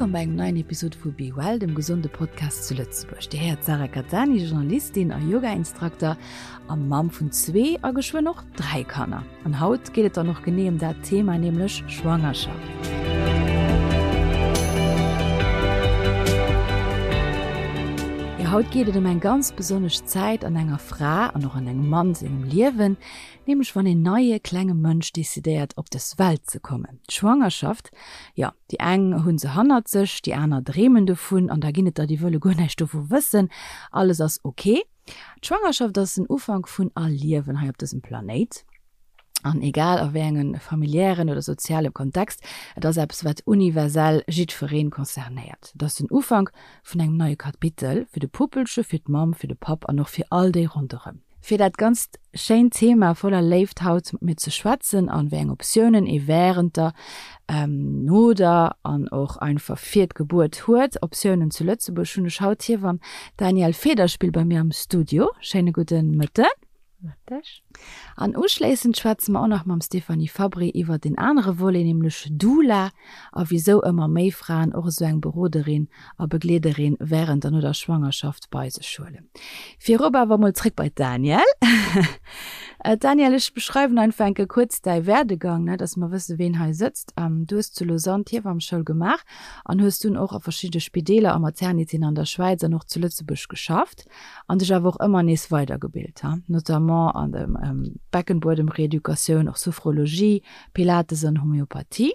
Wëllkomm bei engem neien Episod vu Be Well, dem gesonde Podcast zu Lëtzebuerg. Dir héiert d'Sarah Cattani, Journalistin a Yoga-Instrukter a Mamm vun zwee a geschwënn och 3 Kanner. An haut geet et dann och genee ëm dat Thema, nämlech Schwangerschaft. Jo, haut geet et ëm eng ganz besonnesch Zäit an enger Fra an och an engem Mann sengem Liewen, nämlech wann een neie klenge Mënsch decidéiert op dës Welt ze kommen. D'Schwangerschaft, jo, déi eng hu se hannert sech, déi aner dreemen dovun an da ginn et der, déi wëlle guer näischt dovu wëssen, alles ass ok. D'Schwangerschaft ass den Ufank vun all Liewen hei op dësem Planéit. An egal a wéi engem familiären oder soziale Kontext, et ass eppes wat universell jiddweree concernéiert. Et ass den Ufank vun engem neie Kapitel, fir de Puppelche, fir d'Mamm, fir de Papp an och fir all déi ronderëm. Fir dat ganzt schéint Thema voller Léift haut mat mir ze schwätzen an wéi eng Optiounen ee wärend der, no der an och einfach fir d'Gebuert huet, Optiounen zu Lëtzebuerg, hunn ech haut d'Hiewamm Danièle Federspiel bei mir am Studio. Schéine gudde Mëtten. Mëtteg. An uschléissend schwätze mer och nach mam Stéphanie Fabry iwwert een anere Volet, nämlech Doula a wisou ëmmer méi Fraen och esou eng Beroderin a Begleederin wärend an no der Schwangerschaft bei sech huelen. Virop awer mol zréck bei d'Danièle. Danièle, ech beschreiwen einfach enke kuerz däi Werdegang, ne, dass mer wësse ween hei sëtzt. Du hues zu Lausanne d'Hiewammeschoul gemaach an hues dunn och a verschidde Spideeler a Maternitéen an der Schwäiz an och zu Lëtzebuerg geschafft an dech awer och ëmmer nees weidergebilt, notamment an der Beckenbuedemreeducatioun, och Sophrologie, Pilates an Homöopathie.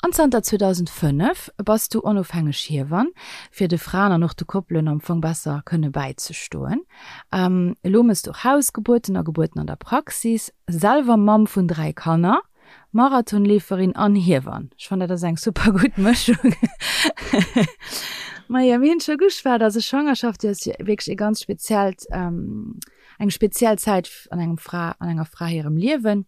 An zanter 2005 bass du onofhängeg Hiewann, fir de Fraen an och de Koppelen am Fong besser kënne bäizestoen. Elo mëss du och Hausgebuerten a Gebuerten an der Praxis, selwer Mamm vun 3 Kanner, Marathonleeferin an Hiewann. Ech fannen dat ass eng super gutt Mëschung. Majo, mir hunn scho geschwat, also Schwangerschaft, déi ass jo wierklech e ganz speziellt, eng speziell Zäit an engem Fra, an enger Fra hirem Liewen.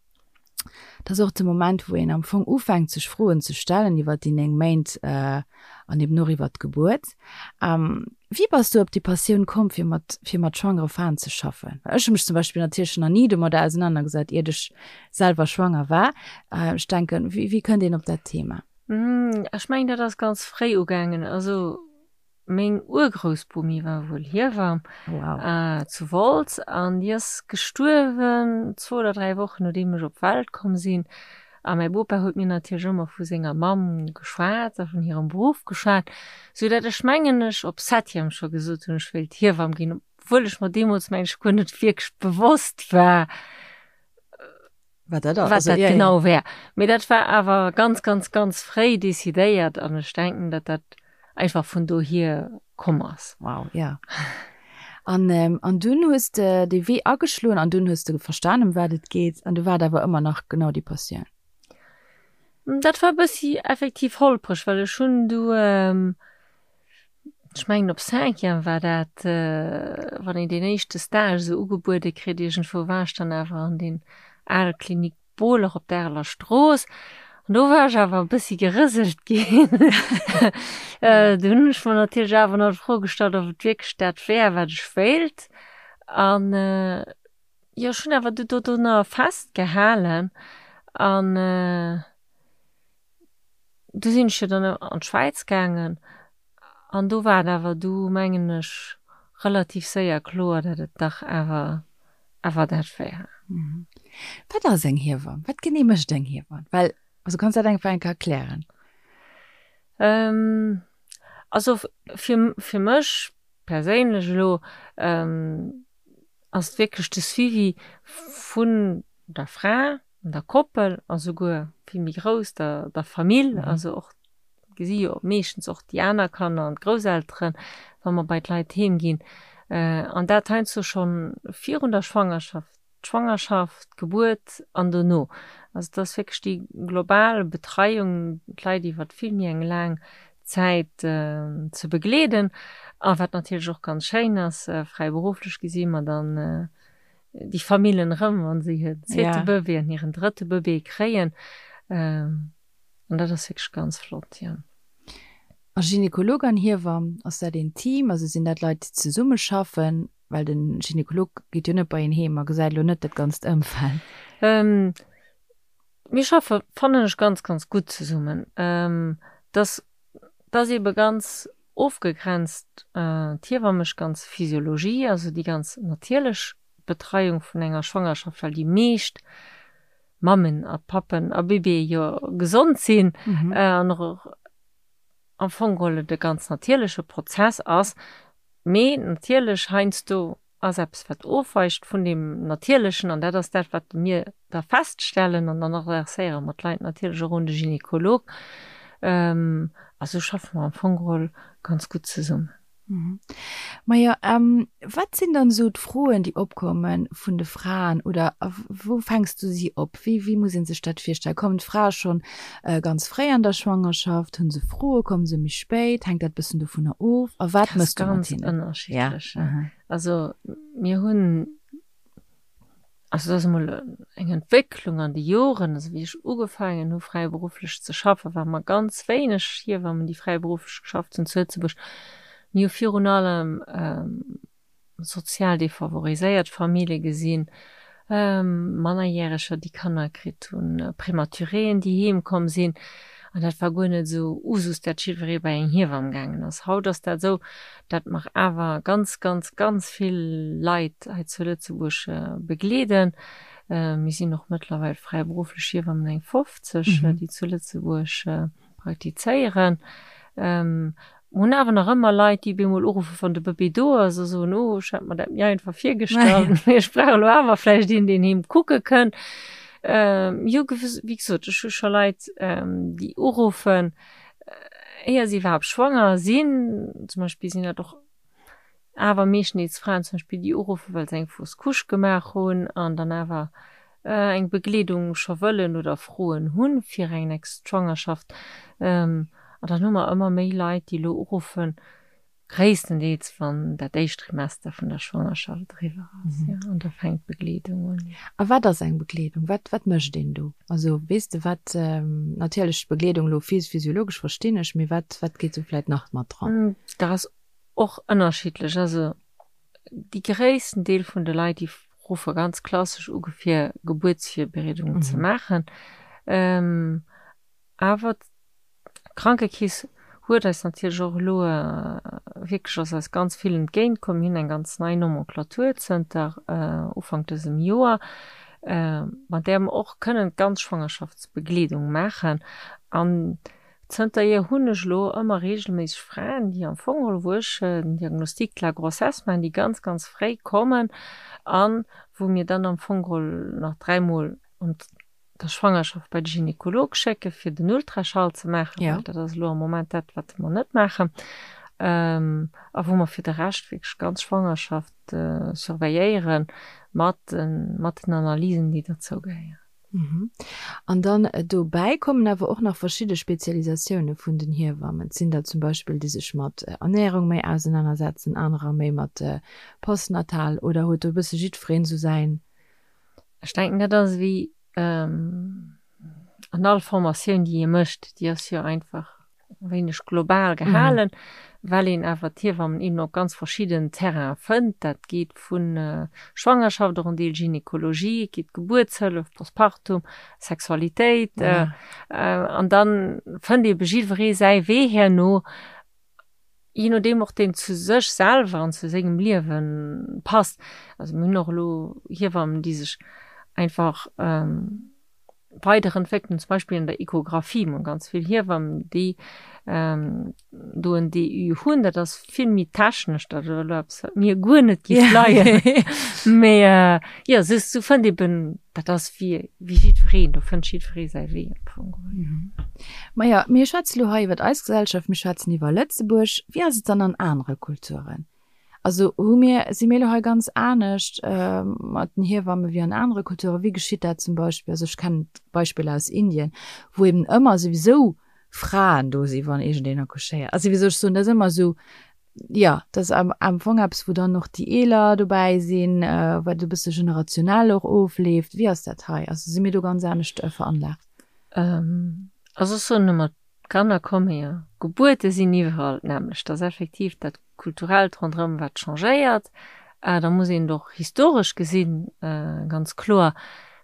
Dat ass och de Moment, wou een am Fong ufänkt, sech Froen ze stellen iwwer déi 9 Méint an eben och iwwer d'Gebuert. Wéi bass du op déi Passioun komm, fir mat, fir mat schwangere Fraen ze schaffen? Well ech hu mech zum Beispill natierlech nach ni domadder ausenanergesat, iert ech selwer schwanger war. Ech denken, wéi, wéi kënnt een op dat Thema? Ech mengen, dat ass ganz fréi ugaangen. Also Meng Urgroussbomi war wuel Hiewamm zu Wolz an déi ass gestuerwen zwou oder 3 Wochen nodeem ech op d'Welt komm sinn. A mäi Bopa huet mir natierlech ëmmer vu senger Mamm geschwat a vun hirem Beruff geschwat, sou dat ech mengen ech op Septième scho gesot hunn, ech wéilt Hiewamm ginn, obwuel ech mer deemools mengen ech guer net wierklech bewosst war, Wat dat ass. Wat dat genau wär. Mee dat war awer ganz, ganz, ganz fréi decidéiert an ech denken, datt dat einfach vun dohier komm ass. Wow, ja. An, an dunn hues de dee Wee ageschloen an dunn hues de verstan, ëm wat et geet an du war et awer ëmmer nach genau déi Passioun? Dat war e bëssi effektiv holpreg, well ech hunn du, Ech mengen op Cinquième war dat, wann een deen éischte Stage esou ugebuede kritt iergendwou, war ech dann awer an deen ale Klinik Bohler op der Areler Strooss. An do war ech awer e bëssi gerëselt ginn. Do hunn ech mer natierlech awer nach d'Fro gestallt, ob et wierklech dat wär, wat ech wéilt. An jo, ech hunn awer du dodrunner festgehalen an Du sinn ech jo dann an d'Schwäiz gaangen an do war et awer du, mengen ech, relativ séier kloer, datt et dach awer awer dat wär. Wat ass eng Hiewamm? Wat genee mécht eng Hiewamm? Well, also kanns dat einfach eng Kéier erklären? Also fir fir mech perséinlech elo ass et wierklech de Suivi vun der Fra, der Koppel a souguer vill méi grouss, der der Famill, also och gesi jo meeschtens och déi aner Kanner an d'Grousselteren, wa mer bei d'Leit heem ginn. An dat heiansdo schonn virun der Schwangerschaft, d'Schwangerschaft, d'Gebuert an dono. Also et ass wierklech déi global Betreiung, d'Leit iwwer vill méi eng laang Zäit ze begleeden. A wat natierlech och ganz schéin ass, fräiberufflech gesi mer dann déi Famillen erëm, wa se hiren zweete ja. Bëbee an hiren drëtte Bëbee kréien. Ähm, an dat ass wierklech ganz flott, ja. A Gynekolog an Hiewamm, ass dat een Team? Also sinn dat Leit, déi zesummeschaffen? Well de Gynekolog geet jo net bei een heem a gesäit elo net dat ganzt Ëmfeld. Ähm, mir schaffe, fannen ech, ganz, ganz gutt zesummen. Ähm, dass. Et ass eebe ganz ofgegrenzt, d'Hiewamm mécht ganz Physiologie, also déi ganz natierlech Betreiung vun enger Schwangerschaft, well déi meescht Mammen a Pappen a Bébéë jo gesond sinn an och am Fong geholl et e ganz natierleche Prozess ass. Mee natierlech heiansdo ass eppes, wat ofweicht vun deem Natierlechen, an dat ass dat, wat mir da feststellen an dann adresséiere mer d'Leit natierlech och un de Gynekolog. A sou schaffe mer am Fong geholl ganz gutt zesummen. Majo, wat sinn dann esou d'Froen, déi opkomme vun de Fraen oder wou fänks du si op? Wéi, wéi muss ee sech dat virstellen? Kommen d'Frae schonn ganz fréi an der Schwangerschaft? Hu se Froe? Komme se méi spéit? Hänkt dat e bëssen dovunner of? A wat méchs du mat hinnen? Dat ass ganz ënnerschiddlech. Also mir hunn, also dat ass emol eng Entwécklung an de Joren, also wéi ech ugefaangen hu fräiberufflech ze schaffen, ware mer ganz wéineg Hiewammen, déi fräiberufflech geschafft hunn zu Lëtzebuerg. Mir hu virun allem sozial defavoriséiert Famillje gesinn, Mannerjäreger, déi Kanner kritt hunn, Prematuréen, déi heem komm sinn. An dat war guer net esou Usus, dat jiddweree bei eng Hiewamm gaangen ass. Haut ass dat esou, dat mer awer ganz, ganz, ganz vill Leit hei zu Lëtzebuerg begleeden. Mir sinn och mëttlerweil fräiberufflech Hiewammen, eng 50, déi zu Lëtzebuerg praktizéieren. Mer hunn awer nach ëmmer Leit, déi bemol uruffen, wann de Bëbee do ass, a soen, Oh, ech hat mer dat méi einfach virgestallt, mee ech brauch elo awer vläicht een, deen heem kucke kënnt. Jo, wéi gesot, ech hu scho Leit, déi uruffen, éier si iwwerhaapt schwanger sinn. Zum Beispill sinn dat och Awer meeschteneels Fraen zum Beispill, déi uruffen, well se eng fausse couche gemaach hunn an dann awer eng Begleedung scho wëllen oder Froen hunn fir eng nächst Schwangerschaft. An dann hu mer ëmmer méi Leit, déi elo uruffen, gréisstendeels wann dat éischt Trimester vun der Schwangerschaft eriwwer ass, jo, an da fänkt d'Begleedung un. A wat ass eng Begleedung? Wat, wat mécht een do? Also weess de wat, natierlech d'Begleedung elo physiologesch verstinn ech, mee wat, wat geet do vläit nach mat dran? Dat ass Och ënnerschiddlech. Also déi gréissten Deel vun de Leit, déi ruffe ganz klassesch u fir Gebuertsvirbereedungen ze maachen. Awer d'Krankekeess huet eis natierlech och elo wierklech, ass eis ganz vill entgéint komm. Mir hunn eng ganz nei Nomenclature zënter Ufank dësem Joer, mat där mer och kënnen d'ganz Schwangerschaftsbegleedung maachen. An Zënterhier hunn ech elo ëmmer reegelméisseg Fraen, déi am Fong geholl, wou ech den Diagnostic de la grossesse maachen, déi ganz, ganz fréi kommen an wou mir dann am Fong geholl nach dräimol an der Schwangerschaft bei de Gynekolog schécke fir den Ultraschall ze maachen, well dat ass elo am Moment dat, wat mer net maachen, a wou mer fir de Rescht wierklech d'ganz Schwangerschaft surveilléiere mat den Analysen, déi derzou gehéieren. An dann dobäi kommen awer och nach verschidde Spezialisatioune vun den Hiewammen. Et sinn der zum Beispill, déi sech mat Ernärung méi ausenanersetzen, anerer méi mat Postnatal. Oder huet do e bësse jiddwereen esou säin. Ech denken, dat ass ewéi an all Formatioun, déi ee mécht, déi ass jo einfach e wéineg global gehalen, well een awer d'Hiewammen eben op ganz verschidden Terrainen fënnt. Dat geet vu Schwangerschaft, och en Deel Gynekologie, et geet Gebuertshëllef, Postpartum, Sexualitéit. An da fënnt ebe jiddweree säi Wee herno, jee nodeem och deen zu sech selwer an zu sengem Liewe passt. Also mir hunn och elo Hiewammen, déi sech einfach weiderentwéckelt hunn, zum Beispill an der Echographie. Mir hunn ganz vill Hiewammen, déi do en DU hunn. Dat ass vill méi technesch, dat ass elo eppes, wat mir guer net géif leien. Mee jo, sou sou fënnt eben, dat ass wéi wéi jiddwereen, do fënnt jiddweree säi Wee am Fong geholl. Maja, mir schwätze lo hei iwwer eis Gesellschaft, mir schwätzen iwwer Lëtzebuerg. Wéi ass et dann an anere Kulturen? Also hu mir, si mir elo hei ganz anescht mat den Hiewamme wéi an anere Kulturen? Wéi geschitt dat zum Beispill? Also ech kennen Beispiller aus Indien, wou eben ëmmer souwisou Fraen do si wann iergendeen accouchéiert. Also wéi soll ech soen, dat ass ëmmer esou, jo, dat ass am am Fong eppes, wou dann och déi Eeler dobäi sinn, wat e bësse generationell och ofleeft. Wéi ass dat hei? Also si mir do ganz anescht veranlaagt? Also ech soen ëmmer, D'Kanner komme jo, Gebuerte sinn iwwerall d'nämmlecht. Dat ass effektiv dat Kulturellt ronderëm, wat changéiert. Da muss een et och historesch gesinn, ganz kloer.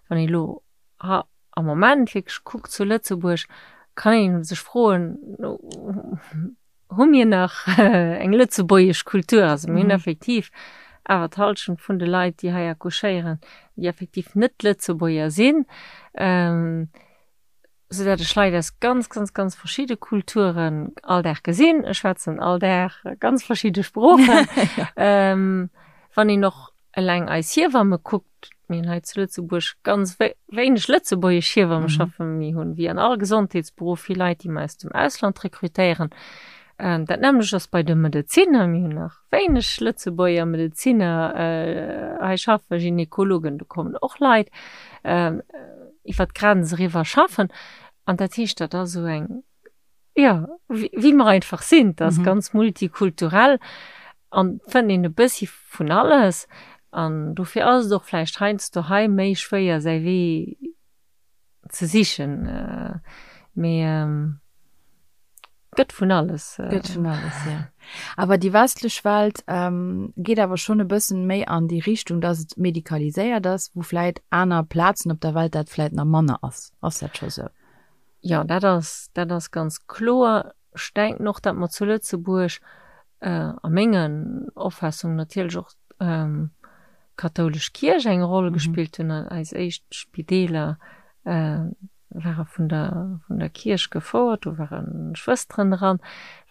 Wann een elo am Moment wierklech kuckt zu Lëtzebuerg, kann ee sech froen,. hu mir nach eng lëtzebuergesch Kultur. Also mir hunn effektiv awer d'Hallschent vun de Leit, déi hei accouchéieren, déi effektiv net Lëtzebuerger sinn, soudatt ech Leit aus ganz, ganz, ganz verschidde Kulturen all Dag gesinn. Ech schwätzen all Dag ganz verschidde Sproochen. Wann een och eleng eis Hiewamme kuckt, mir hunn hei zu Lëtzebuerg ganz wéineg lëtzebuergesch Hiewamme schaffen, mir hunn wéi an all Gesondheetsberuff vill Leit, déi mer aus dem Ausland rekrutéieren. Dat nämmlecht ass bei de Medezinner, mir hunn nach wéineg Lëtzebuerger Medezinner hei schaffen, Gynekologen, do kommen och Leit iwwer d'Grenz eriwwer schaffen. An dat heescht, dat ass esou eng Jo, wéi mer einfach sinn, dat ass ganz multikulturell an fënnt een e bëssi vun alles. An dofir ass et och vläicht heiansdo hei méi schwéier säi Wee ze sichen. Mee gëtt vun alles. Gëtt vun alles, jo. Awer déi westlech Welt geet awer schonn e bëssen méi an déi Richtung, dass et medikaliséiert ass, wou vläit aner Plazen op der Welt dat vläit nach manner ass. Ass dat scho sou? Jo, dat ass, dat ass ganz kloer. Ech denken och, datt mer zu Lëtzebuerg, a mengen Opfaassungen natierlech och d'kathoulesch Kierch eng Roll gespillt hunn. Eis éischt Spideeler ware vun der, vun der Kierch gefouert, do ware Schwësteren dran.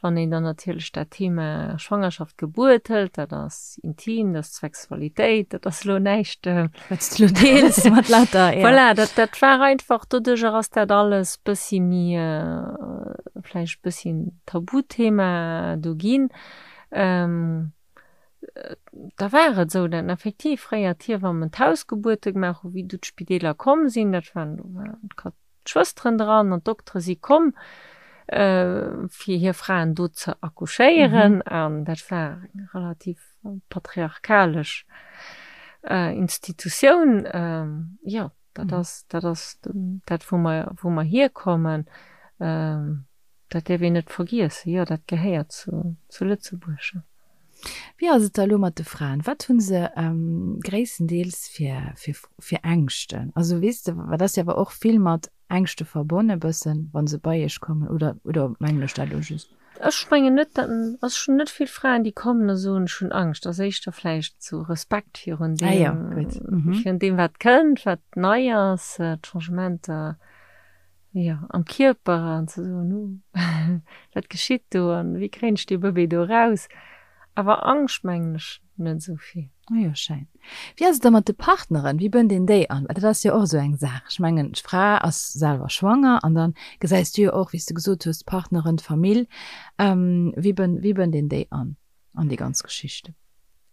Wann een dann natierlech dat Thema Schwangerschaft, Gebuert hëlt, dat ass intim, dat ass Sexualitéit, dat ass elo näischt, Wat s de lo deels mat lauter, ja. Voilà, dat, dat war einfach, doduercher ass dat alles bëssi méi, vläicht bëssi en Tabuthema do ginn. Da war et esou, datt effektiv fréier d'Hiewammen d'Hausgebuerte gemaach hu wéi du d'Spideeler komm sinn, dat waren, do waren d'Schwësteren dran an d'Doktere si komm, fir hir Fraen do ze accouchéieren. An dat war eng relativ patriarchalesch Institutioun. Jo, dat ass, dat ass dat, wou mer, wou mer hierkommen. Dat däerf een net vergiessen. Jo, dat gehéiert zu, zu Lëtzebuerg. Wéi ass et da elo mat de Fraen? Wat hu se gréisstendeels fir, fir, fir Ängschten? Also weess de, wat ass jo awer och vill mat Ängschte verbonne bëssen, wa se bei iech kommen, oder, oder mengen ech dat elo just? Ech mengen net, dat, also ech hunn net vill Fraen, déi kommen a soen, ech hunn Angscht. Ass éischter vläicht sou Respekt virun Ah jo, deem, gutt. Virun deem wat kënnt, wat nei ass, d'Changementer. Jo, am Kierper an ze soen, uh, wat geschitt do an wéi kréien ech dee Bëbee do eraus? Awer Angscht mengen ech net esou vill. Oh jo, schéin. Wéi ass et da mat de Partneren? Wéi bënnt een déi an? Well dat ass jo och esou eng Saach. Ech mengen, d'Fra ass selwer schwanger an dann gesäis du jo och, wéi s de gesot hues, d'Partneren, d'Famill. Wéi bënnt, wéi bënnt een déi an, an déi ganz Geschichte?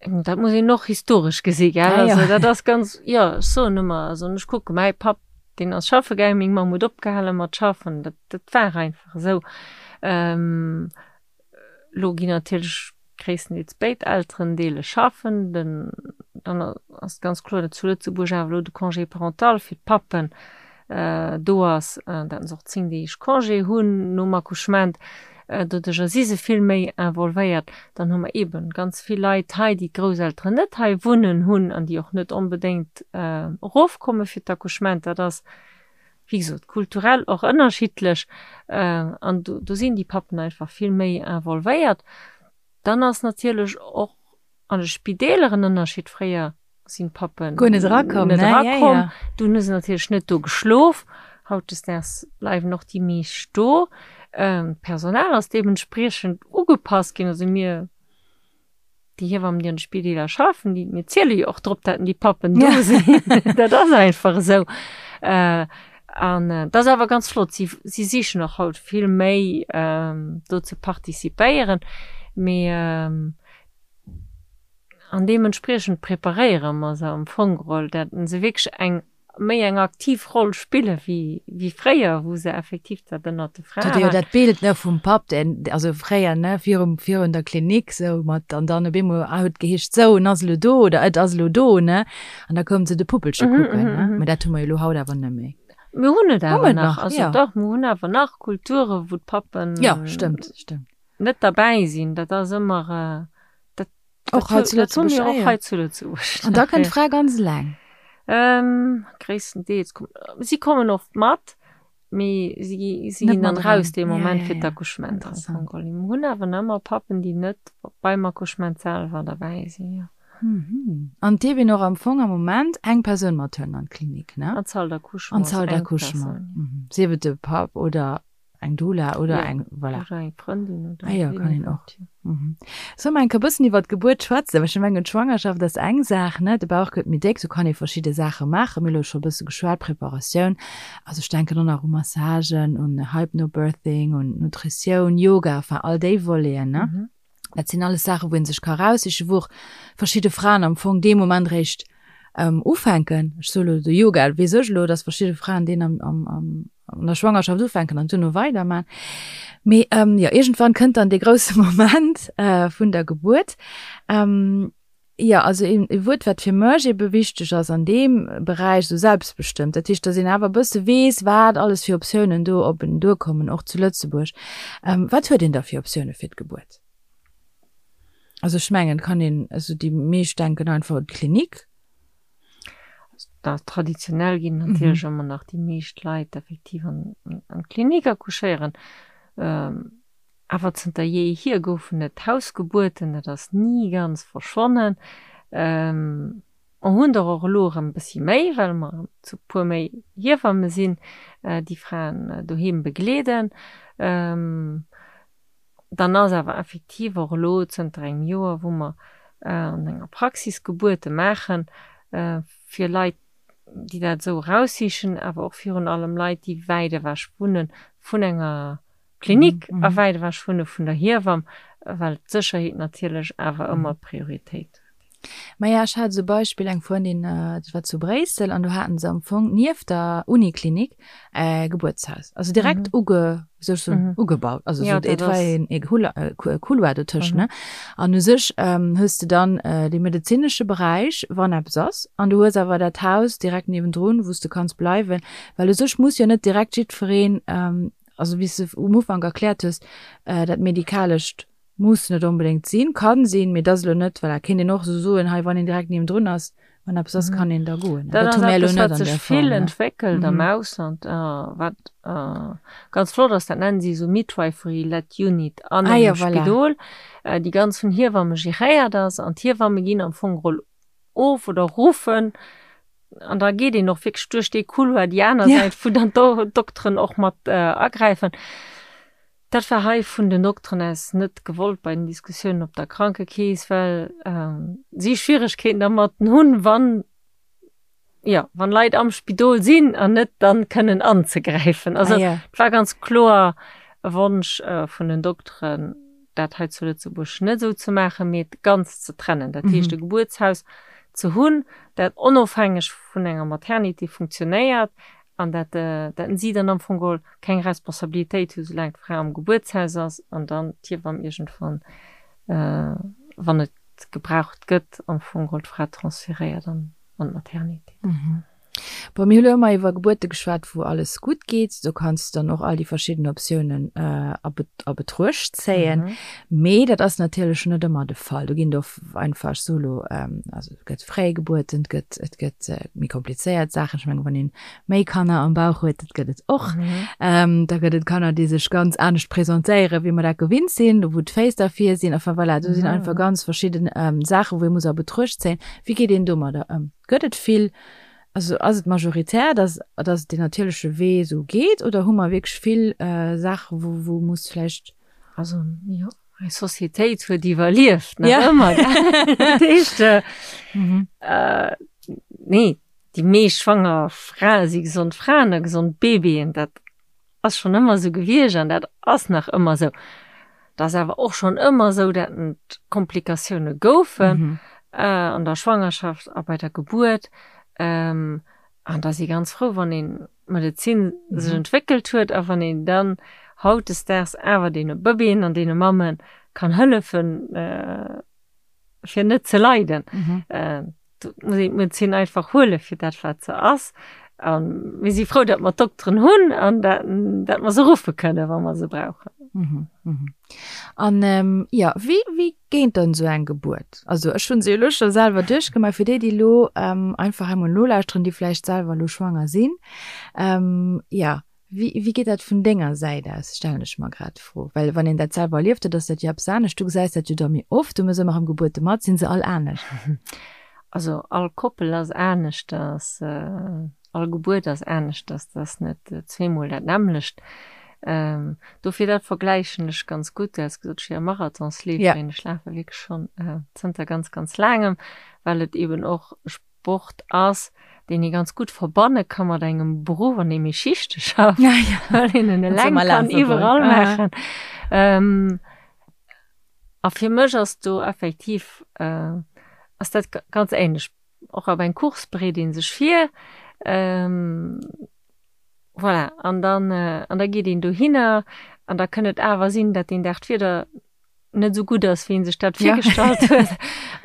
Dat muss een och historesch gesi, gell? Ah, ja. Also dat ass ganz, jo, ech soen ëmmer, also ech kucke mäi Papp, deen ass schaffe gaangen, meng Mamm huet opgehale mat schaffen, dat, dat war einfach esou. Ähm, lo ginn natierlech gréisstendeels béid Elterendeele schaffen, den, dann ass et ganz kloer, datt zu Lëtzebuerg awer elo de Congé parental fir d'Pappen do ass, datt se och 10 Deeg Congé hunn nom Accouchement. Doduercher si se vill méi involvéiert. Dann hu mer eeben ganz vill Leit hei, déi d'Grousselteren net hei wunnen hunn an déi och net onbedéngt erofkomme fir d'Accouchement. Dat ass, wéi gesot, kulturell och ënnerschiddlech. An do sinn déi Pappen einfach vill méi involvéiert. Dann ass natierlech och an de Spideeler en Ënnerscheed. Fréier sinn d'Pappen Guer net erakomm, net erakomm. Ja, ja. Dunn hu se natierlech net do geschlof. Hautdesdaags bleiwen och déi meescht do. D'Personal ass deementspriechend ugepasst ginn. Also mir, déi Hiewammen, déi an de Spideeler schaffen, déi, mir ziele jo och drop, dat déi Pappen do sinn. Dat ass einfach esou. An dat ass awer ganz flott. Si, si sichen och haut vill méi do ze participéieren. Mee An deementspriechend preparéiere mer se am Fong geholl, dat se wierklech eng méi eng aktiv Roll spille wéi wéi fréier, wou se effektiv dat ënnert de Frae waren. Jo, dat Bild, ne, vum Papp, deen, also fréier, ne, virum, virun der Klinik sou mat, an dann op eemol huet geheescht, sou, en ass elo do oder et ass elo do, ne, an da koume se de Puppelche kucken, ne. Mä dat hu mer jo elo haut awer net méi. Mir hunn et awer nach, also dach, mir hunn awer nach Kulture wou d'Pappen. Jo, stëmmt, stëmmt. Net derbäi sinn, dat ass ëmmer. Dat, och hei zu Lëtzebuerg. Och hei zu Lëtzebuerg. An da kënnt d'Fra ganz eleng? Ähm, gréisstendeels. Si kommen oft mat. Mee si gi, si ginn dann raus dee Moment fir d'Accouchement am Fong geholl. Mir hunn awer nach ëmmer Pappen, déi net beim Accouchement selwer derbäi sinn, jo. An et dierf een och am Fong am Moment eng Persoun mathuelen an d'Klinik, ne? An d'Salle d'accouchement. An d'Salle d'accouchement. Sief et de Papp oder Eng Doula oder ja, eng voilà. Oder eng Frëndin oder ah, ja, kann een och. Mhm. Soll mer enke bëssen iwwer d'Gebuert schwätzen? Well ech mengen d'Schwangerschaft ass eng Saach, ne? De Bauch gëtt méi déck, do kann ee verschidde Saache maachen. Mir hu lo scho bësse geschwat, Preparatioun. Also ech denken och nach u Massagen, un Hypnobirthing, un Nutritioun, Yoga, enfin all déi Voleten, ne? Mhm. Dat sinn alles Saachen, wou ee sech ka raussichen, wou och verschidde Fraen am Fong dee Moment réischt ähm, ufänken. Ech soe lo de Yoga, weess ech elo, dass verschidde Fraen deen am, am, am, an der Schwangerschaft ufänken an duerno weiderman. Mee ähm, jo, iergendwann kënnt dann dee grousse Moment äh, vun der Gebuert. Ähm, jo, also een e Wuert, wat fir mech ebe wichteg ass an deem Beräich, esou selbstbestëmmt. Dat heescht, dass een awer e bësse weess, wat alles fir Optiounen do op en duerkommen, och zu Lëtzebuerg. Ähm, wat huet een da fir Optioune fir d'Gebuert? Also ech mengen, kann een, also déi meescht denken einfach un d'Klinik. Da traditionell ginn natierlech mhm. ëmmer nach déi meescht Leit effektiv an, an d'Klinik accouchéieren. Ähm, awer zënter jeehier goufen et Hausgebuerten, dat ass ni ganz verschwonnen. Ähm, mer hunn der och elo erëm e bëssi méi, well mer zu puer méi Hiewamme sinn, äh, déi Fraen äh, doheem begleeden. Ähm, Dann ass awer effektiv och elo zënter engem Joer, wou mer an enger Praxis Gebuerte maachen, fir Leit, déi dat esou eraussichen, awer och virun allem Leit, déi wäit ewech wunne vun enger Klinik a wäit ewech wunne vun der Hiewamm, well d'Sécherheet natierlech awer ëmmer Prioritéit huet. Maja, ech hat esou e Beispill, eng Frëndin, dat war zu Bréissel, an do haten se am Fong nieft der Uniklinik e Gebuertshaus, also direkt uge, wéi soll ech soen, ugebaut, also esou, et war een e Couloir dotëscht, ne? An u sech hues de dann dee medezinesche Beräich, wann eppes ass, an du hues awer dat Haus direkt niewendrun, wou s de kanns bleiwen, well u sech muss jo net direkt jiddwereen, also wéi s de um Ufank erkläert hues, dat Medikalescht Muss net onbedéngt sinn, kann sinn, mee et ass elo net, voilà, kéint een och esou soen, hei wann een direkt niewendrun ass, wann eppes ass, kann een da goen. Dat ass eppes, wat sech vill entwéckelt am Ausland, wat ganz flott ass, dat nennen si esou Midwifery-led unit an engem Spidol, déi ganz vun Hiewamme geréiert ass an d'Hiewamme ginn am Fong geholl of oder ruffen an da geet een och wierklech duerch dee Couloir déi aner Säit, wou dann d'Dokteren och mat agräifen. Dat war hei vun den Dokteren aus net gewollt bei den Diskussiounen op der Krankekeess, well si Schwieregkeeten dermat hunn, wann, jo, wann Leit am Spidol sinn an net dann kënnen anzegräifen. Also et war ganz kloer e Wonsch vun den Dokteren, dat hei zu Lëtzebuerg net esou ze maachen, mee et ganz ze trennen. Dat heescht e Gebuertshaus ze hunn, dat onofhängeg vun enger Maternité funktionéiert, an dat dat si dann am Fong geholl keng Responsabilitéit hu soulaang d'Fra am Gebuertshaus ass an dann d'Hiewamm iergendwann, wann et gebraucht gëtt, am Fong geholl d'Fra transferéiert an an d'Maternité. Bon, mir hu lo ëmmer iwwer Gebuerte geschwat, wou alles gutt geet. Do kanns de dann och all déi verschidden Optiounen a a Betruecht zéien. Mee dat ass natierlech net ëmmer de Fall. Do ginn et och einfach solo, also et gëtt Fréigebuerten, et gëtt et gëtt méi komplizéiert Saachen. Ech mengen, wann een méi Kanner am Bauch huet, dat gëtt et och. Mhm. Da gëtt et Kanner, déi sech ganz anescht presentéieren, wéi mer dat gewinnt sinn, wou d'Féiss dervir sinn. Enfin voilà, do sinn einfach ganz verschidden Saachen, wou ee muss a Betruecht zéien. Wéi geet een domadder ëm? Gëtt et vill, also ass et majoritär, dass, dass et deen natierleche Wee esou geet oder hu mer wierklech vill Saachen, wou, wou muss vläicht. Also jo, eis Societéit huet iwwerlieft, nach ëmmer, gell? Dat heescht, nee, Déi meescht schwanger Frae si gesond Fraen a gesond Babyen. Dat ass schonn ëmmer esou gewiescht an dat ass nach ëmmer esou. Et ass awer och schonn ëmmer esou, dat et Komplikatioune goufen an der Schwangerschaft a bei der Gebuert. An da si ganz frou, wann een d'Medezin sech entwéckelt huet a wann een dann hautdesdaags awer deene Bëbeeën an deene Mamme kann hëllefen, fir net ze leiden. Do muss een d'Medezin einfach huele fir dat, wat se ass. A mir si frou, datt mer d'Dokteren hunn an dat, dat mer se ruffe kënnen, wa mer se brauchen. Mhm, mhm. An ähm, ja, wéi, wéi géint dann esou eng Gebuert? Also ech hunn se jo elo scho selwer duerchgemaach, fir déi, déi elo ähm, einfach emol nolauschteren, déi vläicht selwer elo schwanger sinn. Ähm, ja. Wéi, wéi geet dat vun denger Säit aus, stellen ech mer grad d'Fro. Well wann een dat selwer erlieft huet, ass dat jo eppes anescht. Du gesäis dat jo da méi oft, du méchs ëmmer erëm Gebuerte mat. Sinn se all anescht? Also all Koppel ass aneschters, all Gebuert ass aneschters, dat ass net zweemol dat nämmlecht. Dofir dat vergläichen ech ganz gutt. Du has gesot, ech wier e Marathonsleeferin. Ech lafe wierklech schonn zënter ganz, ganz laangem, well et eeben och Sport ass, deen ee ganz gutt verbanne ka mat engem Beruff, an deem ee Schichte schafft, ja, ja. well een en eleng kann iwwerall maachen. Ähm, a fir mech ass do effektiv äh, ass dat ganz ähnlech. Och op eng Course bereet ee sech vir, ähm, voilà, an dann, äh, an da geet een dohinner an da kënn et awer sinn, dat deen Dag d'Wieder net esou gutt ass, wéi een sech dat virgestallt huet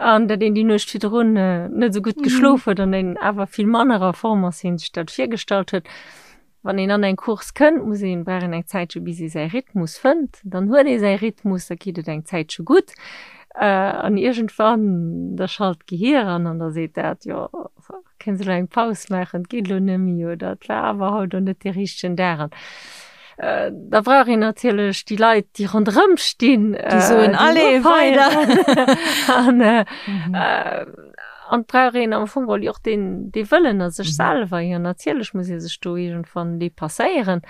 an dat een déi Nuecht virdrun äh, net esou gutt mhm. geschlof huet an een awer vill manner a Form ass, wéi een sech dat virgestallt huet. Wann een an eng Course kënnt, muss een brauch een eng Zäitche bis ee säi Rhythmus fënnt. Dann huet ee säi Rhythmus, da geet et eng Zäitche gutt. Äh, an iergendwann da schalt d'Gehier an an da seet dat, jo, Kënns elo eng Paus maachen, et geet elo net méi oder et war awer haut elo net dee richtegen Dag. An da brauch een natierlech déi Leit, déi ronderëm stinn, déi soen, allez, weider! An an et brauch een am Fong geholl jo och deen, dee Wëllen a sech selwer. Jo, natierlech muss ee sech do iergendwann depasséieren.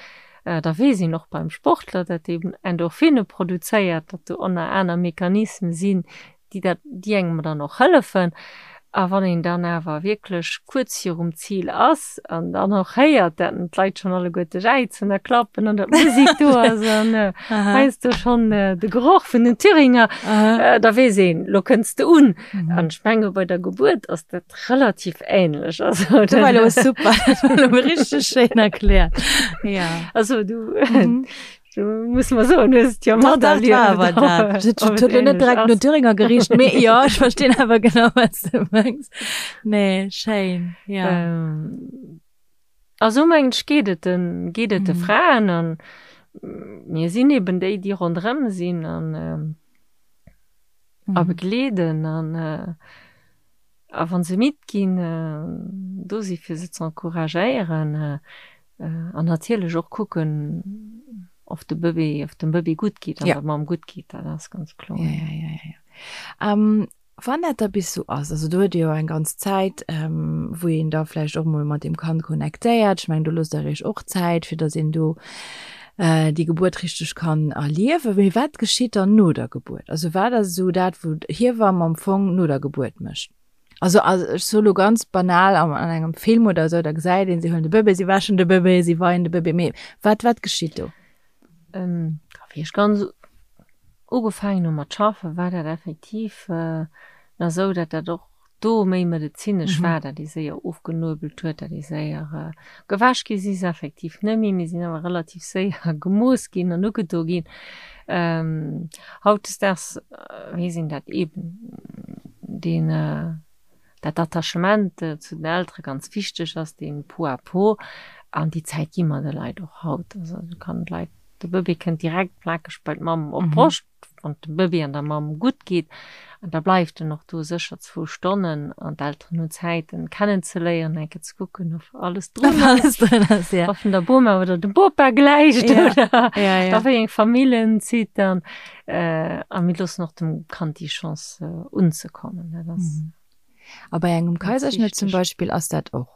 Da weess een och beim Sportler, datt deen Endorphine produzéiert, datt do ënner aner Mechanisme sinn, déi dat, déi engem dann och hëllefen. A wann een dann awer wierklech kuerz virum Zil ass an dann och héiert, dat d'Leit schonn alleguerte jäizen a klappen an datt d'Musek do ass an heiansdo schonn de Geroch vun den Thüringer, da weess een, lo kënns de un. An ech menge bei der Gebuert ass dat relativ änlech. Also dat war elo super, dat war elo richteg schéin erkläert. Jo. Also du. Du muss mer soen, hues et jo mat erlieft. Dat huet lo net direkt no Thüringer gericht, mee jo, ech verstinn awer genau, wat s de mengs. Nee, schéin, ja. A sou mengen ech geet et den, geet et de Fraen an mir sinn eben déi, déi ronderëm sinn an a begleeden an A wa se midd ginn, do si fir se z'encouragéieren an natierlech och kucken, of de Bëbee, of dem Bëbee gutt geet an der Mamm gutt geet, dat ass ganz kloer. Ja, ja, ja, ja, ja. Wann dat da bis sou ass, also do huet Dir jo eng ganz Zäit, wou een da vläicht och emol mat deem Kand connectéiert. Ech mengen, do loosst Der Iech och Zäit, fir datt een do déi Gebuert richteg kann erliewen. Mee wat geschitt dann no der Gebuert? Also wat ass esou dat, wou d'Hiewamm am Fong no der Gebuert mécht? Also ech soe lo ganz banal, an engem Film oder esou, da gesäit een, si huelen de Bëbee, si wäschen de Bëbee, si weien de Bëbee. Mee wat, wat geschitt do? Wéi ech ganz ugefaangen hu mat schaffen, war dat effektiv nach esou, datt dat och do méi medezinesch war, dat ee séier ofgenuebelt huet, dat ee séier gewäsch gi si se effektiv net méi, mee sinn awer relativ séier gemooss ginn an ugedo ginn. Hautdesdaags weess een dat eeben deen, dat Attachement zu den Eltere ganz wichteg ass, dee Peau à peau an déi Zäit gi mer de Leit och haut. Also du kann d'Leit, de Bëbee kënnt direkt plakeg bei d'Mamm op d'Broscht, wann et dem Bëbee an der Mamm gutt geet, an da bleift en och do sécher zwou Stonnen an d'Elteren hunn Zäit en kennenzeléieren, eng Kéier ze kucken of alles drun ass, of en der Boma oder dem Bopa gläicht oder a wéi eng Famill en zitt an a mir loossen och dem Kand déi Chance unzekommen. Dat ass A bei engem Kaiserschnëtt zum Beispill ass dat och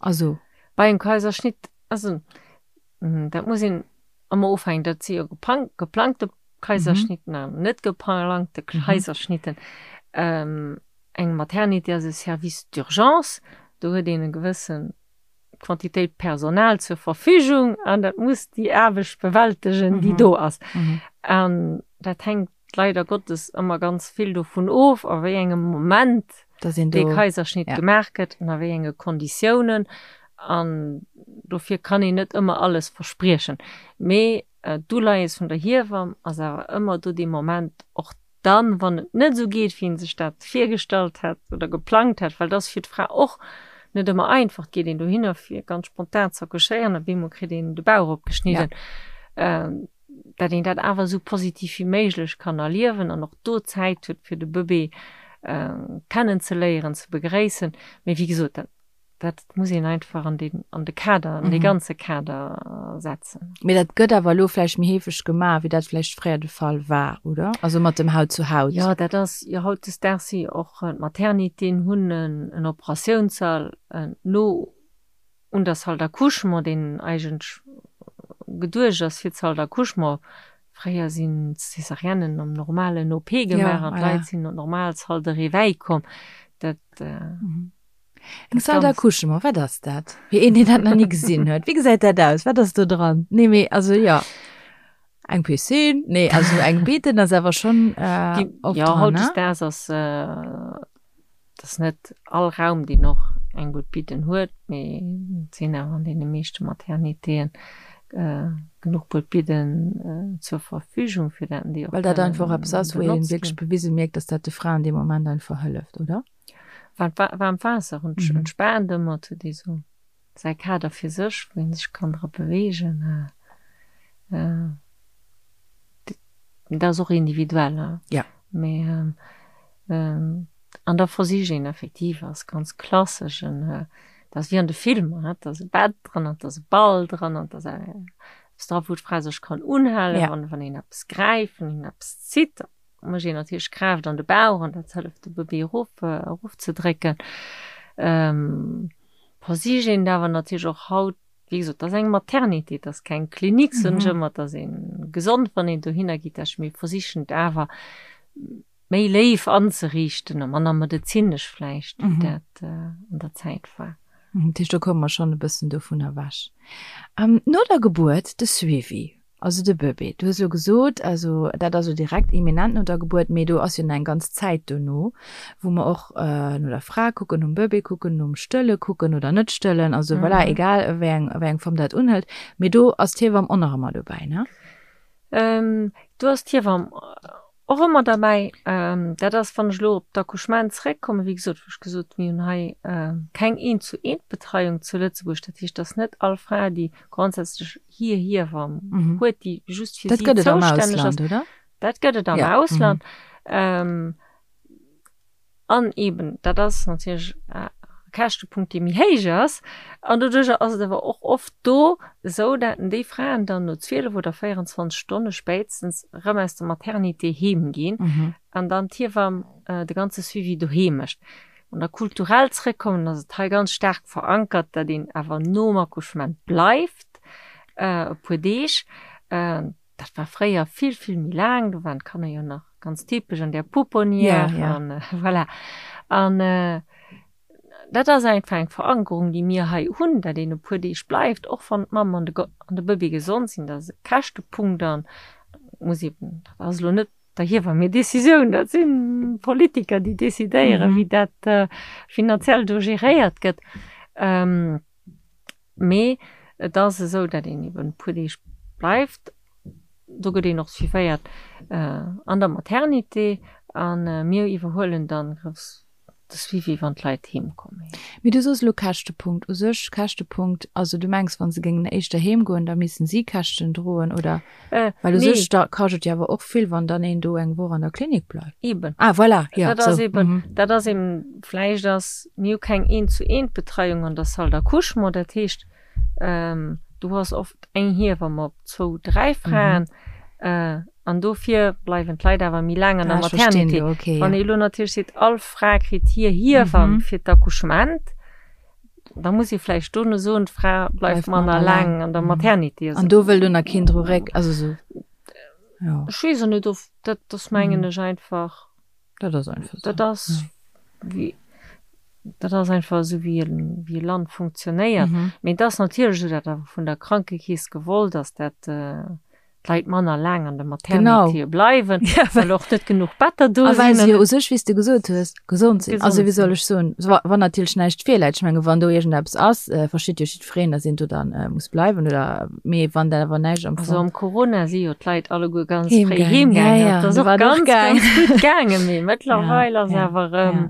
also. Bei engem Kaiserschnitt, also dat muss een ëmmer ofhängen, dat si jo geplangte Kaiserschnitten an net geplangte Kaiserschnitten. Eng Maternité ass e Service d'urgence, do huet een e gewësse Quantitéit Personal zur Verfügung an dat muss déi Aarbecht bewältegen, déi do ass. An dat hänkt leider Gottes ëmmer ganz vill dovun of, a wéi engem Moment dee Kaiserschnitt gemaach gëtt an a wéi enge Konditiounen. An dofir kann een net ëmmer alles verspriechen. Mee d'Uleies vun der Hiewamm ass awer ëmmer do dee Moment, och dann, wann et net esou geet, wéi ee sech dat virgestallt hätt oder geplangt hätt, well et ass fir d'Fra och net ëmmer einfach. Et geet een dohinner, fir ganz spontan z'accouchéieren, op eemol kritt een de Bauch opgeschnidden. Dat een dat awer esou positiv wéi méiglech kann erliewen an och do Zäit huet, fir de Bëbee kennenzeléieren, ze begréissen. Mee wéi gesot, dat. Dat muss een einfach an den, an de Kader, an dee ganze Kader setzen. Mee dat gëtt awer elo vläicht méi heefeg gemaach, wéi dat vläicht fréier de Fall war, oder? Also mat dem Haut zu Haut. Jo, dat ass jo hautdesdaags si och d'Maternitéen hunn en Operatiounssall no un der Salle d'accouchement, deen eigentlech geduecht ass fir d'Salle d'accouchement. Fréier sinn d'Césariennen am normalen OP gemaach an d'Leit sinn an d'normal Salle de réveil komm. Dat. Eng Salle d'accouchement, wat ass dat? Fir een, deen dat nach ni gesinn huet. Wéi gesäit dat aus? Wat ass do dran? Nee, mee also jo. Eng Piscine? Nee, also eng Betten ass awer schonn äh, oft ja, dran, ne? Hautdesdaags ass äh, ass net all Raum, deen och eng gutt Bidden huet, mee et sinn awer an deene meeschte Maternitéen äh, genuch gutt Bidden äh, zur Verfügung, fir dat déi och Well dat einfach eppes ass, wou een wierklech bewise mierkt, dass dat de Fraen dee Moment einfach hëlleft, oder? Waarmt Waasser entspaant ëmmer, et huet ee sou säi Kader fir sech, wou ee sech kann dra beweegen. Dat ass och individuell, mee an da versicht een effektiv, ass ganz klassesch, dat ass wéi an de Filmer, et ass e Bett dran, et ass e Ball dran, et ass eppes dra wou d'Fra sech kann unhalen, wann een eppes gräift, wann een eppes zitt. Mécht een natierlech Kraaft an de Bauch an dat hëlleft de Bëbee erof erofzedrécken. Versicht een et awer natierlech och haut, wéi gesot, et ass eng Maternité, et ass keng Klinik, soen ech ëmmer, et ass ee gesond wann een dohinner geet, dat mir versichen et awer méi léif anzeriichten a manner medezinesch vläicht, wéi dat an der Zäit war. Dat heescht, do komme mer schonn e bëssen dovun ewech. No der Gebuert, de Suivi. Also de Bëbee, du hues elo gesot, also dat ass elo direkt imminent no der Gebuert, mee do ass jo nach eng ganz Zäit dono, wou mer och no der Fra kucken, nom Bëbee kucken, nom Stëlle kucken oder net stëllen, also voilà, egal wéi eng, wéi eng Form dat unhëlt, mee do ass d'Hiewamm och nach ëmmer dobäi, ne? Do ass d'Hiewamm Och ëmmer derbäi, dat ass, wann ech elo op d'Accouchement zeréckkommen, wéi gesot, wou ech gesot hunn, mir hunn hei keng Eent-zu-eent-Betreiung zu Lëtzebuerg. Dat heescht, dass net all Fra, déi grondsätzlech hir Hiewamm huet, déi just fir si zoustänneg ass. Dat gëtt et am Ausland, oder? An eben, dat ass natierlech e Käschtepunkt, dee méi héich ass. An doduerjer ass et awer och oft do esou, dat déi Fraen dann no 12 oder 24 Stonne spéitstens erëm aus der Maternité heem ginn an dann d'Hiewamm de ganze Suivi doheem mécht. Wann der kulturell zrëckkommen, ass et hei ganz staark verankert, dat een awer nom Accouchement bleift e puer Deeg. Dat war fréier vill, vill méi laang, do waren d'Kanner jo nach ganz typesch an där Pouponnière ja, ja. an voilà. An dat ass einfach eng Verankerung, déi mir hei hunn, dat een e puer Deeg bleift, och wann d'Mamm an de an de Bëbee gesond sinn. Dat ass e Käschtepunkt an muss eben, dat ass elo net der Hiewamm hir Decisioun, dat si Politiker, déi decidéieren, wéi dat finanziell do geréiert gëtt. Mee et ass esou, datt een eben e puer Deeg bleift. Do gëtt een och suivéiert an der Maternité a mir iwwerhuelen dann grouss de Suivi, wann d'Leit heem kommen. Mee du soos elo Käschtepunkt. U sech Käschtepunkt, also du mengs, wa se géingen éischter heem goen, da missten si Käschten droen, oder? Well u sech da kascht et jo awer och vill, wann dann een do eng Woch an der Klinik bleift. Eben. Ah, voilà, jo, Dat ass eben, dat ass eben, vläicht ass, mir hu keng Eent-zu-eent-Betreiung an der Salle d'accouchement, dat heescht, du hues oft eng Hiewamm op zwou, dräi Fraen, an dofir bleiwen d'Leit awer méi laang an der Maternité. Wann ee elo natierlech seet, all Fra kritt hir Hiewamm fir d'Accouchement, Da muss ee vläicht dono soen, d'Fra bleift manner laang an der Maternité. An do wëll dunner keen dru réck, also sou, jo. Ech weess och net, of dat ass mengen ech einfach. Dat ass einfach sou. Dat ass wéi, dat ass einfach esou wéi e, wéi e Land funktionéiert. Mee et ass natierlech esou, dat awer vun der Krankekeess gewollt ass, dat d'Leit manner laang an der Maternité bleiwen, ja, well och net genuch Better do sinn. A well se jo u sech, wéi s de gesot hues, gesond sinn. Also wéi soll ech soen, wann natierlech näischt virläit, ech menge wann do iergendeppes ass, versteet jo jiddwereen, datt een do dann muss bleiwen oder, mee wann dat awer näischt am Fong. Also am Corona si jo d'Leit alleguer ganz fréi heemgaangen, dat ass och ganz, ganz gutt gaangen, mee mëttlerweil ass awer erëm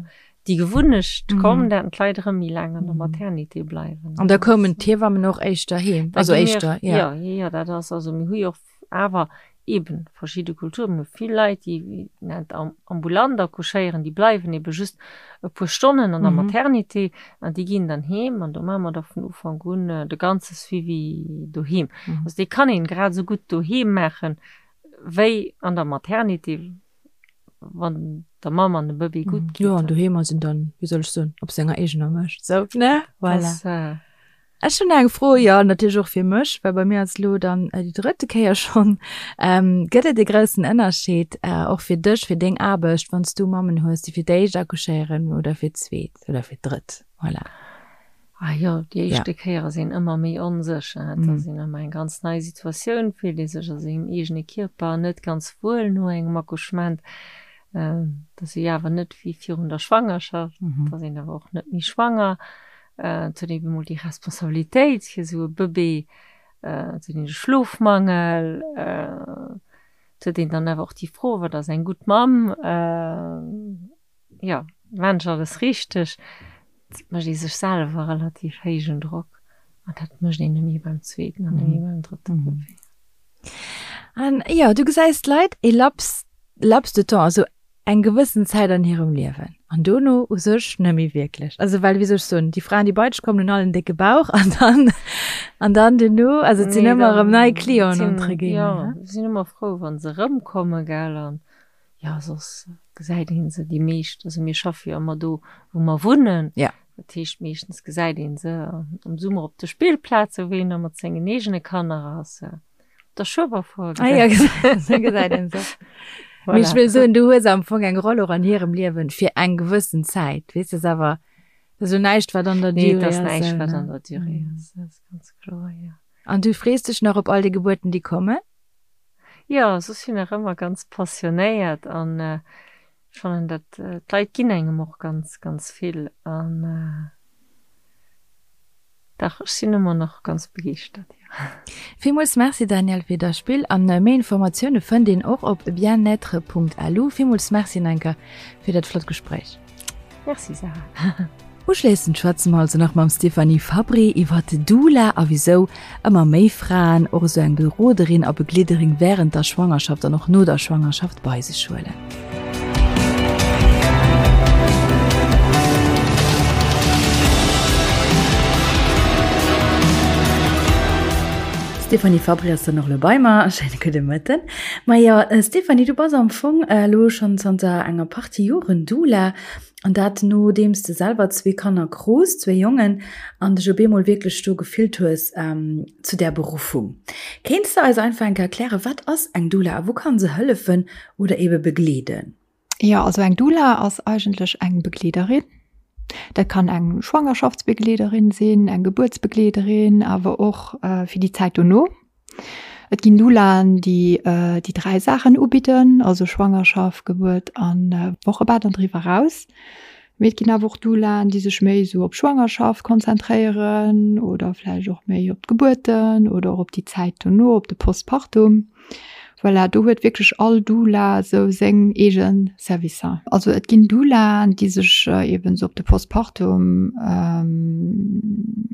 déi Gewunnecht komm, dat d'Leit erëm méi laang an der Maternité bleiwen. An da koumen d'Hiewammen och éischter heem? Also éischter, jo. Jo, jo, dat ass, also mir hu jo och awer. Eben verschidde Kulturen, mir hu vill Leit, déi nennt ambulant accouchéieren, déi bleiwen ebe just e puer Stonnen an der Maternité an déi ginn dann heem an do maache mer da vun Ufank un de ganze Suivi doheem. Also dee kann een grad esou gutt doheem maachen, wéi an der Maternité, wann der Mamm an dem Bëbee gutt geet. Jo, an doheem ass een dann, wéi soll ech soen, op senger eegener Mécht, sou, ne? Voilà. Ech hunn eng Fro, jo natierlech och fir mech, well bei mir ass elo dann déi drëtte Kéier schonn. Gëtt et e groussen Ënnerscheed och fir dech, fir deng Aarbecht, wann s du Mammen hues, déi fir d'éischt accouchéieren oder fir d'zweet oder fir d'drëtt? Voilà. Ah jo, déi éischte Kéier ass een ëmmer méi onsécher. Et ass een ëmmer eng ganz nei Situatioun, fillt ee sech a sengem eegene Kierper net ganz wuel no engem Accouchement. Et ass jo awer net wéi virun der Schwangerschaft, et ass een awer och net méi schwanger. Et huet een emol déi Responsabilitéit fir esou e Bëbee, et huet een de Schlofmangel, et huet een dann awer och déi Fro, wat ass eng gutt Mamm, jo, maan ech alles richteg? Et mécht ee sech selwer relativ héijen Drock an dat mécht een net méi beim zweeten an net méi beim drëtte Bëbee. An jo, du gesäis d'Leit e Laps, Laps de temps, also eng gewëssen Zäit an hirem Liewen an dono u sech net méi wierklech. Also well, wéi soll ech soen, déi Fraen, déi bei dech kommen, hunn all en décke Bauch an dann, an dann duerno, also et sinn ëmmer erëm nei Clienten entre guillemets. Jo, sinn ëmmer frou, wa se erëmkommen, gell, an jo, soss gesäit ee se déi meescht, also mir schaffe jo ëmmer do, wou mer wunnen. Ja. Dat heescht, meeschtens gesäit ee se am Summer op de Spillplazen, wou een da mat sengen eegene Kanner ass. Der Schueberfour ah, ja, gesäit een se. Voilà. Ech wëll soen, du hues am Fong eng Roll och an hirem Liewen fir eng gewëssen Zäit. Weess de, awer dat ass jo näischt, wat an der nee, Durée ass. Nee, dat ass näischt, wat an der Durée mm. ass. Dat ass ganz kloer, ja. An du frees dech nach op all déi Gebuerten, déi kommen? Jo, soss sinn nach ëmmer ganz passionéiert an äh, ech fannen dat äh, d'Leit ginn engem och ganz, ganz vill an äh, Dach, ech sinn ëmmer nach ganz begeeschtert, jo. Villmools Merci Danièle fir der Spill an méi Informatioune fënnt een och op bien-être.lu. Villmools Merci Nenker fir dat flott Gespréich. Merci Sarah. Uschléissend schwätze mer also nach mam Stéphanie Fabbri iwwert Doula a wisou ëmmer méi Fraen och esou eng Beroderin a Begleederin wärend der Schwangerschaft an och no der Schwangerschaft bei sech huelen. D'Stéphanie Fabry ass dann och elo bei mer. Schéine gudde Mëtten. Majo, Stéphanie, du bass am Fong elo schonn zanter enger Partie Joren Doula. An dat nodeems de selwer zwee Kanner krus, zwee Jongen, an dech op eemol wierklech do gefillt hues zu där Beruffung. Kéints de eis einfach eng Kéier erklären, wat ass eng Doula a wou kann se hëllefen oder eebe begleeden? Jo, also eng Doula ass eigentlech eng Begleederin. Dat kann eng Schwangerschaftsbegleederin sinn, eng Gebuertsbegleederin, awer och fir déi Zäit dono. Et ginn Doulaen, déi déi 3 Saachen ubidden, also Schwangerschaft, Gebuert an Wochebett an driwwer eraus. Mee et ginn awer och Doulaen, déi sech méi esou op Schwangerschaft konzentréieren oder vläicht och méi op d'Gebuerten oder och op déi Zäit dono, op de Postpartum. Voilà, do huet wierklech all Doula esou seng eege Servicer. Also et ginn Doulaen, déi sech eben esou op de Postpartum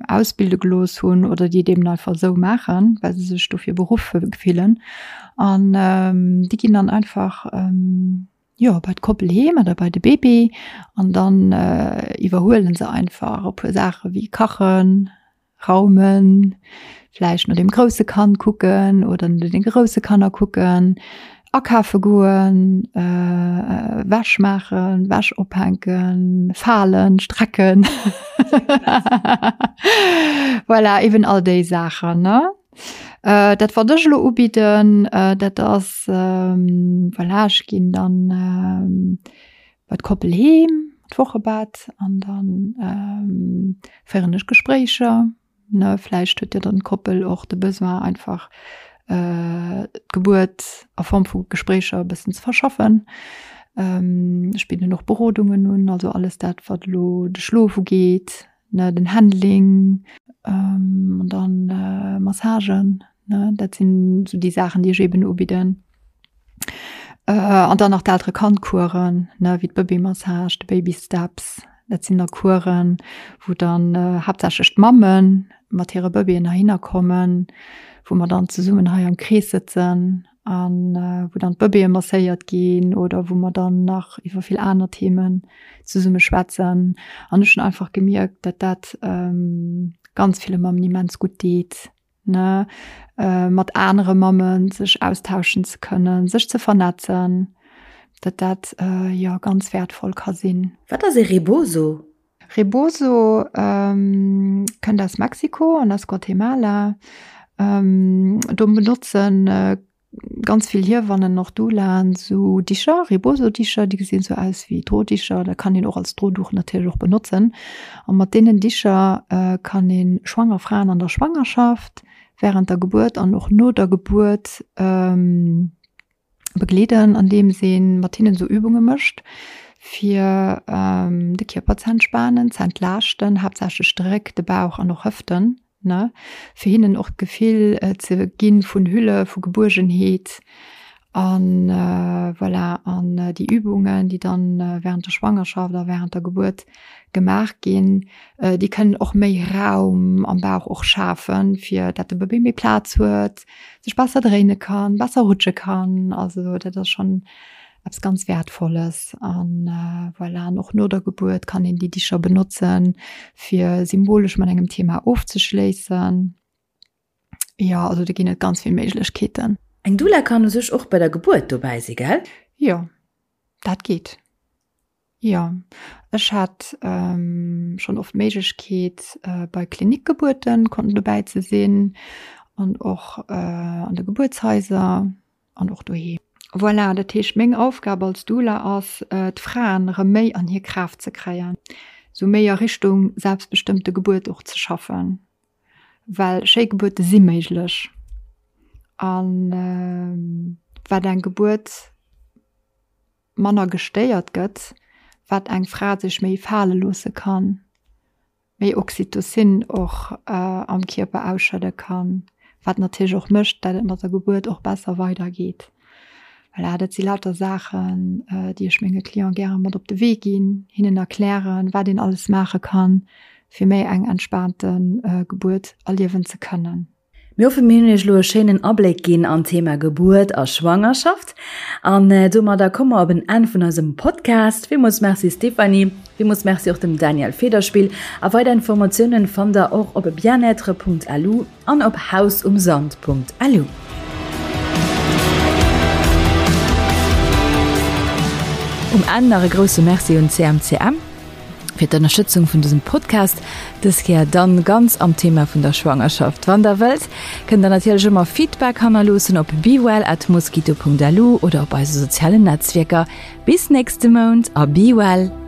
ausbilde gelooss hunn oder déi et eben einfach esou maachen, well se sech dofir beruff fillen. An déi ginn dann einfach, jo, bei d'Koppel heem oder bei de Bébé an dann iwwerhuele se einfach e puer Saache wéi kachen, Raumen, vläicht no dem grousse Kand kucken oder no den grousse Kanner kucken, akafe goen, Wäsch maachen, Wäsch ophänken, falen, strecken. Voilà, eben all déi Saachen, ne? Dat wat ech elo ubidden, dat ass, voilà, ech ginn dann bei d'Koppel heem, d'Wochebett an dann féieren ech Gespréicher, ne. Vläicht huet jo dann d'Koppel och de Besoin einfach d'Gebuert a Form vu Gespréicher e bëssen ze verschaffen. Ech bidden och Berodungen un, also alles dat wat elo de Schlof ugeet, ne, den Handling an dann Massagen, ne, dat sinn esou déi Saachen, déi ech eben ubidden. An dann nach d'Eltere-Kand-Coursen, ne, wéi d'Bëbee-Massage, de Baby-Steps. Dat sinn da Coursen, wou dann haaptsächlech d'Mamme mat hire Bëbeeën heihinner kommen, wou mer dann zesummen hei am Krees sëtzen. An wou dann d'Bëbeeë masséiert ginn oder wou mer dann nach iwwer vill aner Themen zesumme schwätzen. An ech hunn einfach gemierkt, datt dat ganz ville Mammen immens gutt deet, ne, mat anere Mammen sech austauschen ze kënnen, sech ze vernetzen, datt dat jo ganz wäertvoll ka sinn. Wat ass e Rebozo? Rebozo kënnt aus Mexiko an aus Guatemala. Do benotzen ganz vill Hiewannen, och Doulaen, sou Dicher, Rebozo-Dicher, déi gesinn sou aus wéi Drodicher, dat kann een och als Droduch natierlech och benotzen. A mat deenen Dicher kann ee schwanger Fraen an der Schwangerschaft, wärend der Gebuert an och no der Gebuert begleeden, andeems ee mat hinnen esou Übunge mécht, fir de Kierper ze entspanen, ze entlaaschten, haaptsächlech de Réck, de Bauch an och Hëften, ne, fir hinnen och d'Gefill ze ginn vun Hülle, vu Gebuergenheet an voilà. An déi Übungen, déi dann während der Schwangerschaft a während der Gebuert gemaach ginn, déi kënnen och méi Raum am Bauch och schafen, fir dat de Bëbee méi Plaz huet, sech besser dréine kann, besser rutsche kann. Also dat ass schonn eppes ganz Wäertvolles. An voilà, an och no der Gebuert kann een déi Dicher benotzen, fir symbolesch mat engem Thema ofzeschléissen. Jo, also do ginn et ganz vill Méiglechkeeten. Eng Doula kann u sech och bei der Gebuert dobäi si, gell? Jo, dat geet. Jo, ech hat schonn oft d'Méiglechkeet bei Klinikgebuerten konnten dobäi ze sinn an och an de Gebuertshaiser an och doheem. Voilà, dat heescht meng Aufgab als Doula ass d'Fraen erëm méi an hir Kraaft ze kréien, sou méi a Richtung selbstbestëmmte Gebuert och ze schaffen, well schéi Gebuerte si méiglech an wat eng Gebuert manner gestéiert gëtt, wat eng Fra sech méi fale loosse kann, méi Oxytocin och am Kierper ausschëdde kann, wat natierlech och mécht, dat et mat der Gebuert och besser weidergeet. Voilà, dat si lauter Saachen, déi ech menge Cliente gäre mat op de Wee ginn, hinnen erklären, wat een alles maache kann, fir méi eng entspaante Gebuert erliewen ze kënnen. Mir hoffen mir hunn iech elo e schéinen Abléck ginn an d'Thema Gebuert a Schwangerschaft. An domadder komme mer op en Enn vun eisem Podcast. Villmools Merci Stéphanie, villmools Merci och dem Daniel Federspiel. A weider Informatiounen fannt der och op bien-être.lu an op hausumsand.lu. Um Enn nach e grousse Merci un CMCM. Fir d'Ënnerstëtzung vun dësem Podcast, dës Kéier dann ganz am Thema vun der Schwangerschaft. Wann der wëllt, kënnt der natierlech ëmmer Feedback hannerloossen op bewell@mosquito.lu oder op eise sozialen Netzwierker. Bis nächste Mount a be well!